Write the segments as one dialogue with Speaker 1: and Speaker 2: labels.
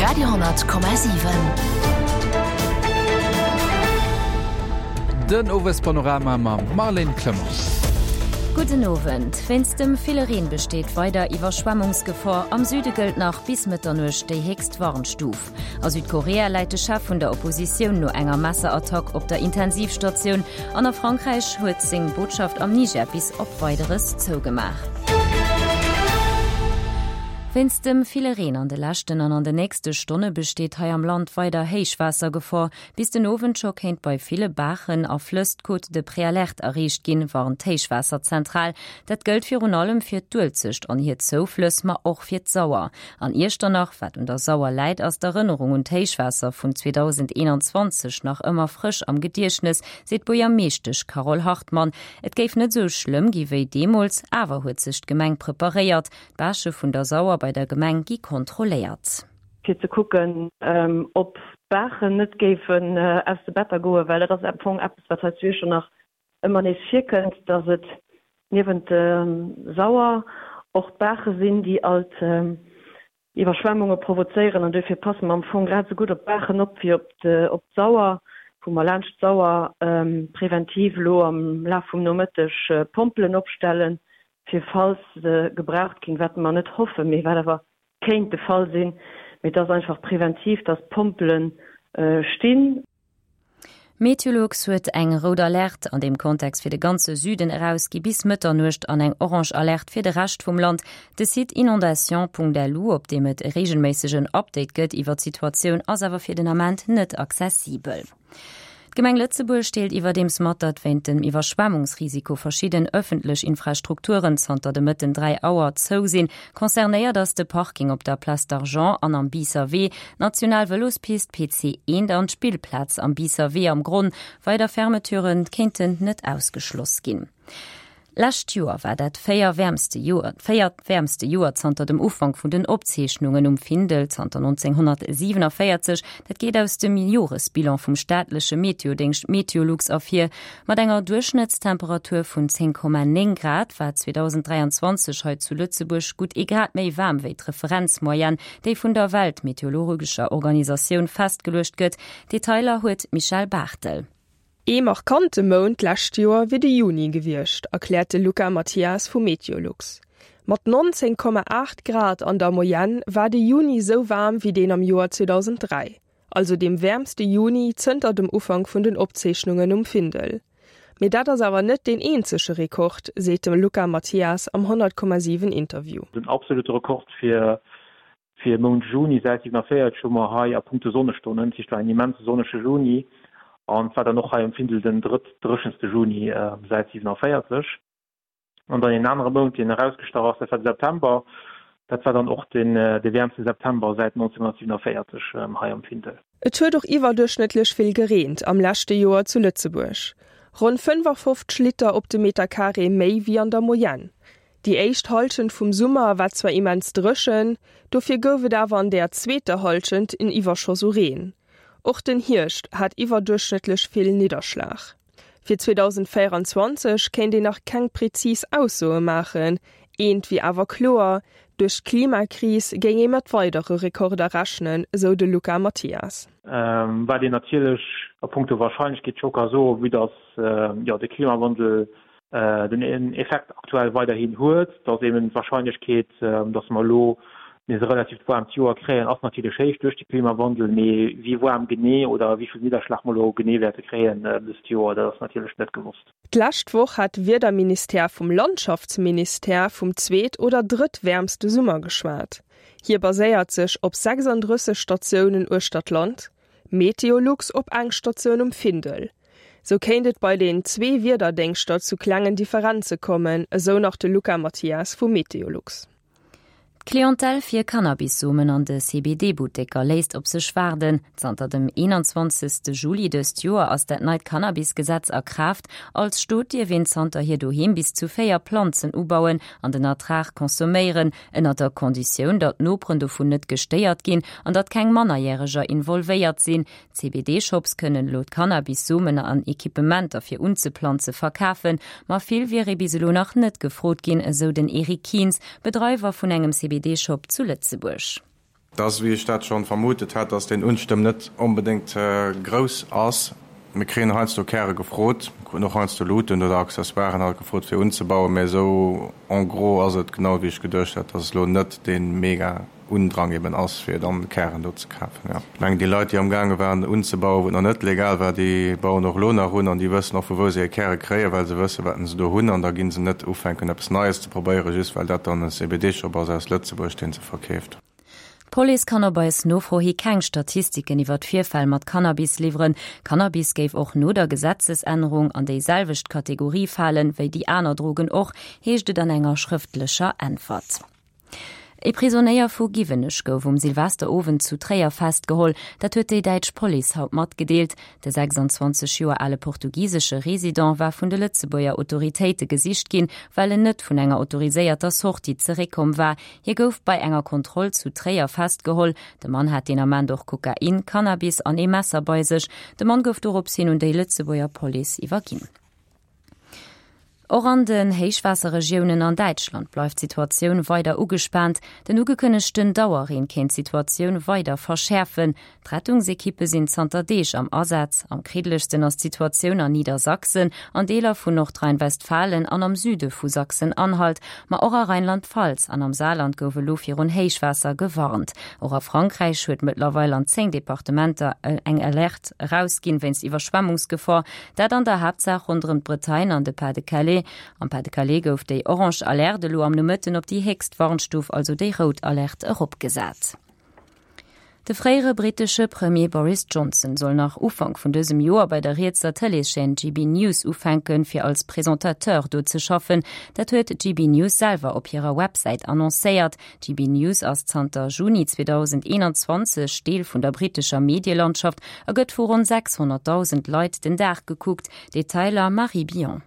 Speaker 1: Radio,7.
Speaker 2: Den Owespanorama mam Marlène Clement.
Speaker 3: Gudden Owend. Wéinst dem ville Reen besteet weider Iwwerschwemmungsgefor. Am Süde gëllt nach bis Mëtternuecht déi héchst Warnstuf. A Südkorea läit de Chef vun der Oppositioun no enger Messerattack op der Intensivstatioun an a Frankräich huet seng Botschaft am Niger bis op Weideres zougemaach. Wéinst dem ville Reen an de leschten an an de nächste Stonne besteet hei am Land weider Héichwaassergefor. Bis den Owend scho kéint bei ville Baachen a Flëss d'Cote de Préalerte erreecht ginn, warnt d'Héichwaasserzentral. Dat gëllt virun allem fir d'Uelzecht an hir Zouflëss, ma och fir d'Sauer. An Iechternach, wat un der Sauer läit, ass d'Erënnerung un d'Héichwaasser vun 2021 nach ëmmer frësch am Gediechtnes, seet d'Buergermeeschtesch Carole Hartmann. Et géif net esou schlëmm gi wéi deemools, awer huet sech d'Gemeng preparéiert. D'Bâche vun der Sauer bei der Gemeng gi kontrolléiert.
Speaker 4: Fir ze kucken, ob d'Baachen net géifen aus de Better goen, well dat ass am Fong eppes, wat hei zu Iechternach ëmmer nees virkënnt, dass et niewent der Sauer och d'Baache sinn, déi alt Iwwerschwemmunge provozéieren. An duerfir passe mer am Fong grad esou gutt op d'Baachen op wéi op d'Sauer, wou mer laanscht d'Sauer preventiv elo am Laf vum Nomëtteg Pompelen opstellen, fir falls se gebraucht ginn, wat mer net hoffen, mee wat awer kéint de Fall sinn. Mee et ass einfach preventiv, dass d'Pompele stinn.
Speaker 3: Meteolux huet eng rout Alerte an deem Kontext fir de ganze Süden erausgi bis Mëtternuecht an eng orange Alerte fir de Rescht vum Land. De Site inondations.lu, op deem et e reegelméissegen Update gëtt iwwer d'Situatioun, ass awer fir den Ament net accessibel. D'Gemeng Lëtzebuerg deelt iwwerdeems mat, datt wéint dem Iwwerschwemmungsrisiko verschidden ëffentlech Infrastrukturen zanter de Mëtten 3 Auer zou sinn. Concernéiert ass de Parking op der Place d'Argent an am Biisser Wee, d'national Vëlospist PC 1 an d'Spillplaz am Biisser Wee am Gronn. Weider Fermeturen kéinten net ausgeschloss ginn. Lescht Joer war dat véier wäermste Joer, véiert wäermste Joer zanter dem Ufank vun den Opzeechnungen um Findel zanter 1947. Dat geet aus dem Joresbilan vum staatleche Meteodéngscht Meteolux ervir. Mat enger Duerchschnëttstemperatur vun 10,9 Grad war 2023 hei zu Lëtzebuerg gutt ee Grad méi waarm wéi d'Referenzmoyenne, déi vun der Weltmeteorologescher Organisatioun festgeluecht gëtt. Detailer huet d'Michèle Barthel.
Speaker 5: Ee markante Mount d'lescht Joer wier de Juni gewiescht, erkläert de Luca Mathias vu Meteolux. Mat 19,8 Grad an der Moyenne war de Juni sou waarm wéi deen am Joer 2003, also deem wäermste Juni zënter dem Ufank vun den Opzeechnungen um Findel. Mee dat ass awer net deen eenzege Rekord, seet de Luca Mathias am 100,7 Interview.
Speaker 6: Den absolute Rekord fir Fir Mount Juni säit 47 hu mer hei a punkto Sonnestonnen, dat heescht war en immense sonnege Juni an et war dann och hei um Findel den drëttdréchenste Juni säit 47. An dann een anere Mount, deen erausgestach ass, dat war de September. Dat war dann och de wäermste September säit 1947 hei am Findel.
Speaker 5: Et huet och iwwerduerchschnëttlech vill gereent am leschte Joer zu Lëtzebuerg, ronn 55 Liter op de Meterkaree méi wéi an der Moyenne. Déi éischt Hallschent vum Summer war zwar immens dréchen, dofir gouf et awer an der zweeter Hallschent en Iwwerschoss u Reen. Och den Hierscht hat iwwerduerchschnëttlech vill Nidderschlag. Fir 2024 kéint een nach keng prezis Aussoe maachen, eent wier awer kloer, Duerch d'Klimakris géing ee mat weidere Rekorder rechnen, esou de Luca Mathias.
Speaker 6: Wat een natierlech a punkto Warscheinlechkeet scho ka soen, vue dass jo de Klimawandel den Effekt aktuell weiderhin huet, dass eben d'Wahrscheinlechkeet, dass mer elo nees e relativt waarmt Joer kréien, ass natierlech héich duerch de Klimawandel. Mee wéi waarm genee oder wéi vill Nidderschlag mer elo genee wäerte kréien dëst Joer, dat ass natierlech net gewosst.
Speaker 5: D'lescht Woch hat de Wiederministère vum Landschaftsministère vum zweet oder drëttwäermste Summer geschwat. Hie baséiert sech op 36 Statiounen uechter d'Land, Meteolux op eng Statioun um Findel. Sou kéint et bei den zwee Wiederdéngschter zu klengen Differenze kommen, esou nach de Luca Mathias vu Meteolux.
Speaker 3: D'Clientèle fir Cannabis-Somen an de CBD-Butteker léisst op sech waarden. Zanter dem 21. Juli dëst Joer ass dat neit Cannabis-Gesetz a Kraaft. Als Stot dierf een zanterhier doheem bis zu 4 Planzen ubauen an den Ertrag consomméieren, ënner der Konditioun, datt d'Noperen dovun net gestéiert ginn an datt keng Mannerjäreger involvéiert sinn. CBD-Shops kënnen elo d'Cannabis-Somen an Equipementer fir unzeplanze verkafen, ma vill wier ee bis elo nach net gefrot ginn, esou den Eric Kientz, Bedreiwer vun engem CBD-Shop zu Lëtzebuerg.
Speaker 1: Et ass, wéi ech dat schonn vermutet hat, dass deen Unstëmm net onbedéngt grouss ass. Mir kréien heiansdo Käre gefrot, mir kruten och heiansdo Luuten oder Accessoiren halt gefrot fir unzebauen, mä esou en gros ass et genau wéi ech geduecht hat, dass et elo net dee mega Undrang eben ass fir dann Kären do ze kafen. Jo, ech mengen déi Leit déi amgaange waren unzebauen, wou et nach net legal war, déi bauen och elo nach un an déi wëssen och vu wou se hir Käre kréien, well se wëssen wat se do hunn an da gi se net ufänken eppes Neies ze probéieren, just well dat dann e CBD-Shop ass aus Lëtzebuerg dee se verkeeft.
Speaker 3: D'Police kann op eis Nofro hi keng Statistiken iwwer d'Virfäll mat Cannabis liwweren. Cannabis géif och no der Gesetzesännerung an déi selwecht Kategorie falen, wéi déi aner Drogen och, heescht et an enger schrëftlecher Äntwert. E Prisonéier vu Giwenech gouf um Silvesterowend zu Tréier festgeholl. Dat huet déi däitsch Police haut matgedeelt. De 26 Joer ale portugisesche Resident war vun de Lëtzebuerger Autoritéite gesicht ginn, well en net vun enger autoriséierter Sortie zeréckkomm war. Hie gouf bei enger Kontroll zu Tréier festgeholl. De Mann hat deen Ament och Kokain, Cannabis an ee Messer bei sech. De Mann gouf dorops hin un déi Lëtzebuerger Police iwwerginn. Och an den Héichwaasserregiounen an Däitschland bleift d'Situatioun weider ugespaant. Den ugekënnegten Dauerreen kéint d'Situatioun weider verschäerfen. D'Rettungsekippe sinn zanter Deeg am Asaz. Am kriddelegsten ass d'Situatioun an Niedersachsen, an Deeler vun Nordrhein-Westfalen an am Süde vu Sachsen-Anhalt. Ma och a Rheinland-Pfalz an am Saarland gouf elo virun Héichwaasser gewarnt. Och a Frankräich huet mëttlerweil an 10 Departementer eng Alerte erausginn wéinst Iwwerschwemmungsgefor. Dat an der Haaptsaach ronderëm d'Bretagne an de Pas-de-Calais. Am Pas-de-Calais gouf déi orange Alerte elo am Nomëtten op déi héchst Warnstuf, also déi rout Alerte, eropgesat. De fréiere brittesche Premier Boris Johnson soll nach Ufank vun dësem Joer bei der rietser Tëleeschaîne GB News ufänken, fir als Presentateur do ze schaffen. Dat huet GB News selwer op hirer Websäit annoncéiert. GB News ass zanter Juni 2021 Deel vun der brittescher Medielandschaft a gëtt vu ronn 600.000 Leit den Dag gekuckt. Detailer Marie Billon.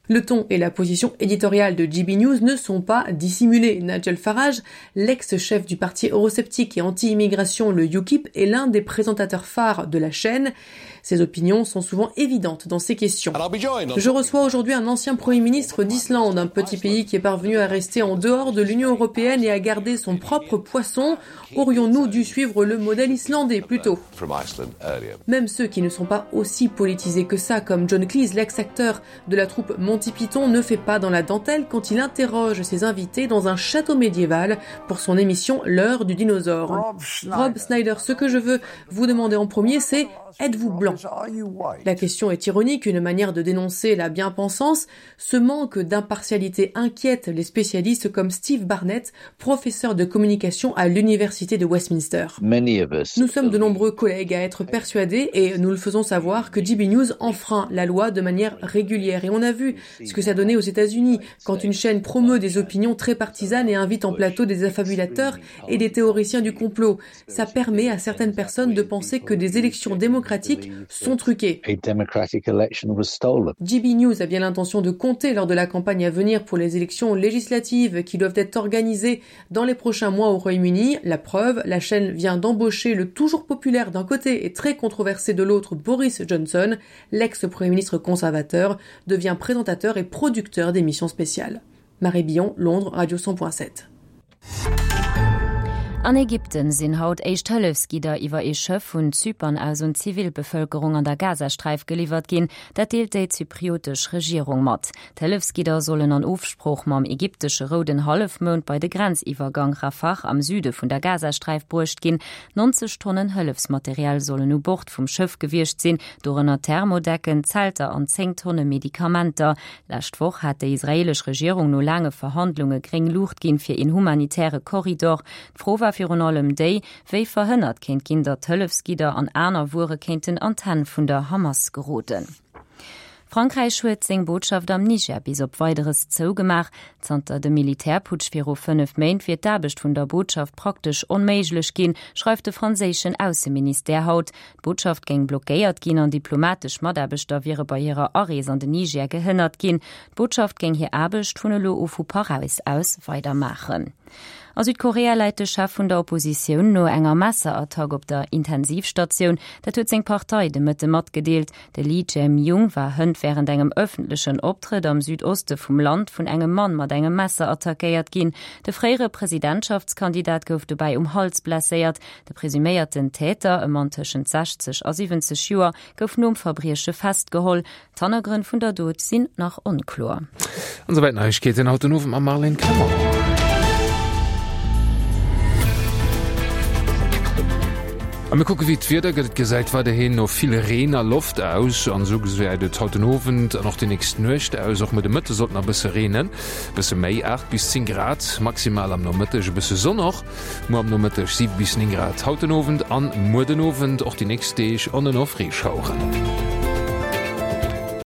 Speaker 7: Le ton et la position éditoriale de GB News ne sont pas dissimulés. Nigel Farage, l'ex-chef du parti eurosceptique et anti-immigration, le UKIP, est l'un des présentateurs phares de la chaîne. Ses opinions sont souvent évidentes dans ces questions. Je reçois aujourd'hui un ancien premier ministre d'Islande, un petit pays qui est parvenu à rester en dehors de l'Union européenne et à garder son propre poisson. Aurions-nous dû suivre le modèle islandais plutôt Même ceux qui ne sont pas aussi politisés que ça, comme John Cleese, l'ex-acteur de la troupe Monty Python, ne fait pas dans la dentelle quand il interroge ses invités dans un château médiéval pour son émission L'heure du dinosaure. Rob Snyder, ce que je veux vous demander en premier, c'est êtes-vous blanc La question est ironique, une manière de dénoncer la bien-pensance. Ce manque d'impartialité inquiète les spécialistes comme Steve Barnett, professeur de communication à l'université de Westminster. Nous sommes de nombreux collègues à être persuadés et nous le faisons savoir que GB News enfreint la loi de manière régulière et on a vu ce que ça donnait aux États-Unis quand une chaîne promeut des opinions très partisanes et invite en plateau des affabulateurs et des théoriciens du complot. Ça permet à certaines personnes de penser que des élections démocratiques sont truquées. GB News a bien l'intention de compter lors de la campagne à venir pour les élections législatives qui doivent être organisées dans les prochains mois au Royaume-Uni. La preuve, la chaîne vient d'embaucher le toujours populaire d'un côté et très controversé de l'autre Boris Johnson, l'ex-premier ministre conservateur, devient présentateur et producteur d'émissions spéciales. Marie Billon, Londres, Radio 100.7.
Speaker 3: An Ägypten sinn haut éischt Hëllefsgidder iwwer ee Schëff vun Zypern aus un d'Zivilbevëlkerung an der Gazasträif geliwwert ginn. Dat deelt déi zypriotesch Regierung mat. D'Hëllefsgidder sollen an Ofsprooch mam ägyptesche Rouden Hallefmound bei de Grenziwwergang Rafah am Süde vun der Gazasträif bruecht ginn. 90 Tonnen Hëllefsmaterial sollen u Bord vum Schëff gewiescht sinn, dorënner Thermodecken, Zelter an 10 Tonne Medikamenter. Lescht Woch hat déi israeelesch Regierung no laange Verhandlunge gréng Luucht ginn fir een humanitäre Korridor. D'Fro war virun allem déi, wéi verhënnert kéint ginn, datt Hëllefsgidder an aner Wuere kéinten an d'Hänn vun der Hamas geroden. Frankräich huet seng Botschaft am Niger bis op Weideres zougemaach. Zanter dem Militärputsch viru 5 Méint wier d'Aarbecht vun der Botschaft praktesch onméiglech ginn, schreift de franséischen Ausseministère haut. D'Botschaft géing blockéiert ginn an diplomatesch Mataarbechter wiere bei hirer Arees an den Niger gehënnert ginn. D'Botschaft géing hir Aarbecht vun elo u vu Paräis aus weidermaachen. A Südkorea läit de Chef vun der Oppositioun no enger Messerattack op der Intensivstatioun. Dat huet seng Partei de Mëtte matgedeelt. De Lee Jae-myung war hënt wärend engem ëffentlechen Optrëtt am Südoste vum Land vun engem Mann mat engem Messer attackéiert ginn. De fréiere Presidentschaftskandidat gouf dobäi um Hals blesséiert. De presuméierten Täter, e Mann tëschent 60 a 70 Joer, gouf nom Verbrieche festgeholl. D'Hannergrënn vun der Dot sinn nach onkloer.
Speaker 2: An esouwäit d'Neiegkeeten haut den Owend mam Marlène Clement. A mir kucke wéi d'Wieder gëtt. Et gesäit weiderhin no vill Reen a Loft aus an esou gesäit et haut den Owend an och déi nächst Nuecht aus. Och muer de Mëtte sollt nach e bësse reenen, e bësse méi, 8 bis 10 Grad maximal am Nomëtteg, e bësse Sonn och muer am Nomëtteg, 7 bis 9 Grad haut den Owend an muer den Owend. Och déi nächst Deeg on en off Reeschaueren.